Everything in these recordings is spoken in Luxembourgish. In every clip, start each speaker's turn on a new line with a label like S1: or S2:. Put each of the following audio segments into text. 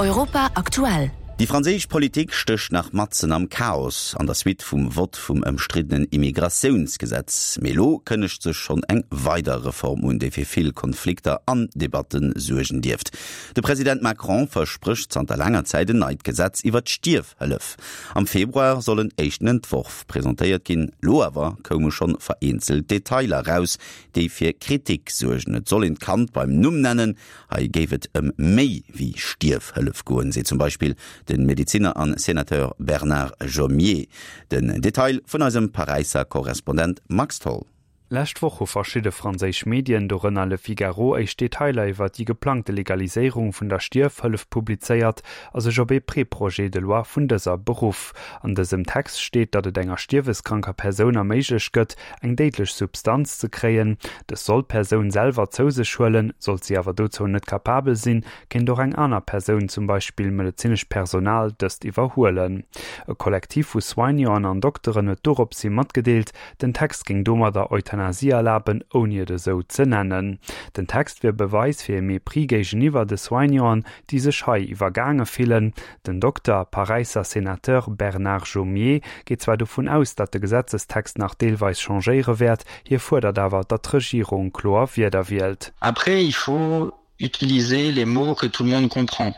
S1: Europa aktuell.
S2: Déi franséisch Politik stécht nach matzen am Chaos an der Suite vum Vott vum ëmstriddenen Immigratiounsgesetz. Mee elo kënnegt sech schonn eng weider Reform un, déi fir vill Konflikter an Debatte suergen dierft. De President Macron versprécht zanter laanger Zäit en neit Gesetz iwwer d'Stierfhëllef. Am Februar soll en éischten Entworf presentéiert ginn. Lo awer koume schonn vereenzelt Detailer raus, déi fir Kritik suergen. Et soll een d'Kand beim Numm nennen. Hei géif et ëm méi wéi Stierfhëllef goen, seet zum Beispill de Medezinner an Senateur Bernard Jomier. Den Detail vun eisem Paräisser Korrespondent Max Tholl.
S3: Lescht Woch hu verschidde franséisch Medien, dorënner Le Figaro, éischt Detailer iwwer déi geplangte Legaliséierung vun der Stierfhëllef publizéiert a sech op ee Pré-Projet de loi vun dëser beruff. An dësem Text steet, datt et enger stierweskranker Persoun erméiglecht gëtt, eng déidlech Substanz ze kréien. Dës soll d'Persoun selwer zou sech huelen. Sollt si awer dozou net kapabel sinn, kéint och eng aner Persoun, zum Beispill medezinescht Personal, dëst iwwerhuelen. E Kollektiv vu Soignanten an Dokteren huet doropshi matgedeelt, Den Text géing domadder Euthanasie erlaben, ouni et esou ze nennen. Den Text wier Beweis fir e Mépris géigeniwwer de Soignanten, déi sech hei iwwergaange fillen. Den Dokter, Paräisser Senateur Bernard Jomier geet zwar dovun aus, datt de Gesetzestext nach deelweis changéiere wäert, hie fuerdert awer, datt d'Regierung kloer Wierder wielt.
S4: Après, il faut utiliser les mots que tout le monde comprend.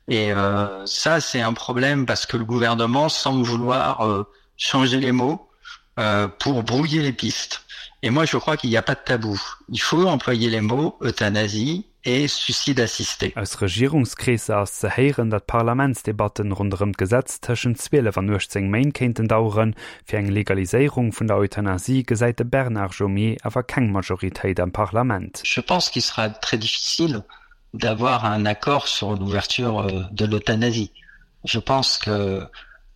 S4: Et euh, ça, c'est un problème parce que le gouvernement semble vouloir euh, changer les mots euh, pour brouiller les pistes. Et moi, je crois qu'il n'y a pas de tabou. Il faut employer les mots euthanasie et suicide assisté.
S3: Aus Regierungskreesser ass ze héieren, datt d'Parlamentsdebatten ronderëm d'Gesetz tëschent 12 an 18 Méint kéinten daueren. Fir eng Legaliséierung vun der Euthanasie gesäit de Bernard Jomier awer keng Majoritéit am Parlament.
S4: Je pense qu'il sera très difficile d'avoir un accord sur l'ouverture de l'euthanasie. Je pense que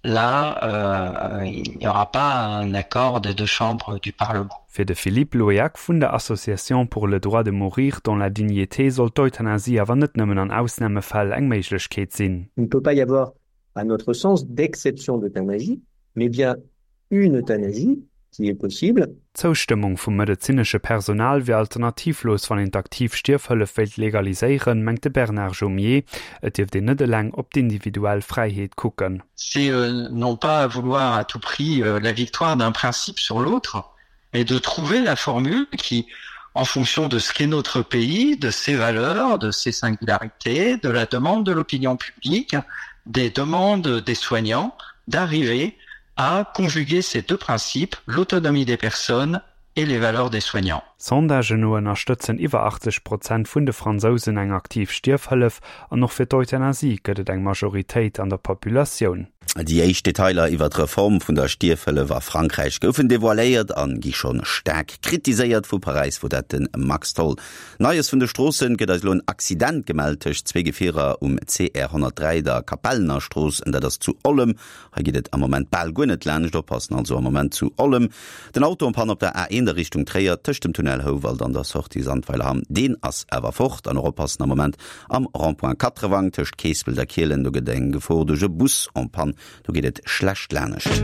S4: là, euh, il n'y aura pas un accord des deux chambres du Parlement.
S3: Fir de Philippe Loeak vun der Association pour le droit de mourir dans la dignité soll d'Euthanasie awer net nëmmen an Ausnamefäll eng Méiglechkeet sinn.
S5: Il ne peut pas y avoir, à notre sens, d'exception d'euthanasie, mais bien une euthanasie qui est possible.
S3: D'Zoustëmmung vum medezinesche Personal wier alternativlos, wann een d'aktiv Stierfhëllef wéilt legaliséieren, mengt de Bernard Jomier. Et dierft een net eleng op d'individuell Fräiheet kucken.
S4: C'est non pas vouloir à tout prix la victoire d'un principe sur l'autre, mais de trouver la formule qui, en fonction de ce qu'est notre pays, de ses valeurs, de ses singularités, de la demande de l'opinion publique, des demandes des soignants, d'arriver à conjuguer ces deux principes, l'autonomie des personnes et les valeurs des soignants.
S3: Sondagen no ënnerstëtzen iwwer 80 Prozent vun de Fransousen eng aktiv Stierfhëllef an och fir d'Euthanasie gëtt et eng Majoritéit an der Populatioun.
S2: Déi éischt Detailer iwwer d'Reform vun der Stierfhëllef a Frankräich goufen devoiléiert an gi schonn staark kritiséiert. Vu Paräis wor dat de Max Tholl. Neies vun de Stroossen, gëtt eis elo en Accident gemellt tëscht zwee Gefierer um CR 103, der Kapellenerstrooss, en dat ass zu Ollem. Hei geet et am Moment bal guer net laanscht. Oppassen also am Moment zu Ollem. Den Auto en panne op der A1 a Richtung Tréier tëscht dem Tunnel Houwald an der Sortie Sandweilerhamm, deen ass awer fort. An och oppassen am Moment am Rond-point Katrewang tëscht Keespelt a Kielen, do gëtt eng Gefor duerch e Bus en panne, do geet et schlecht laanescht.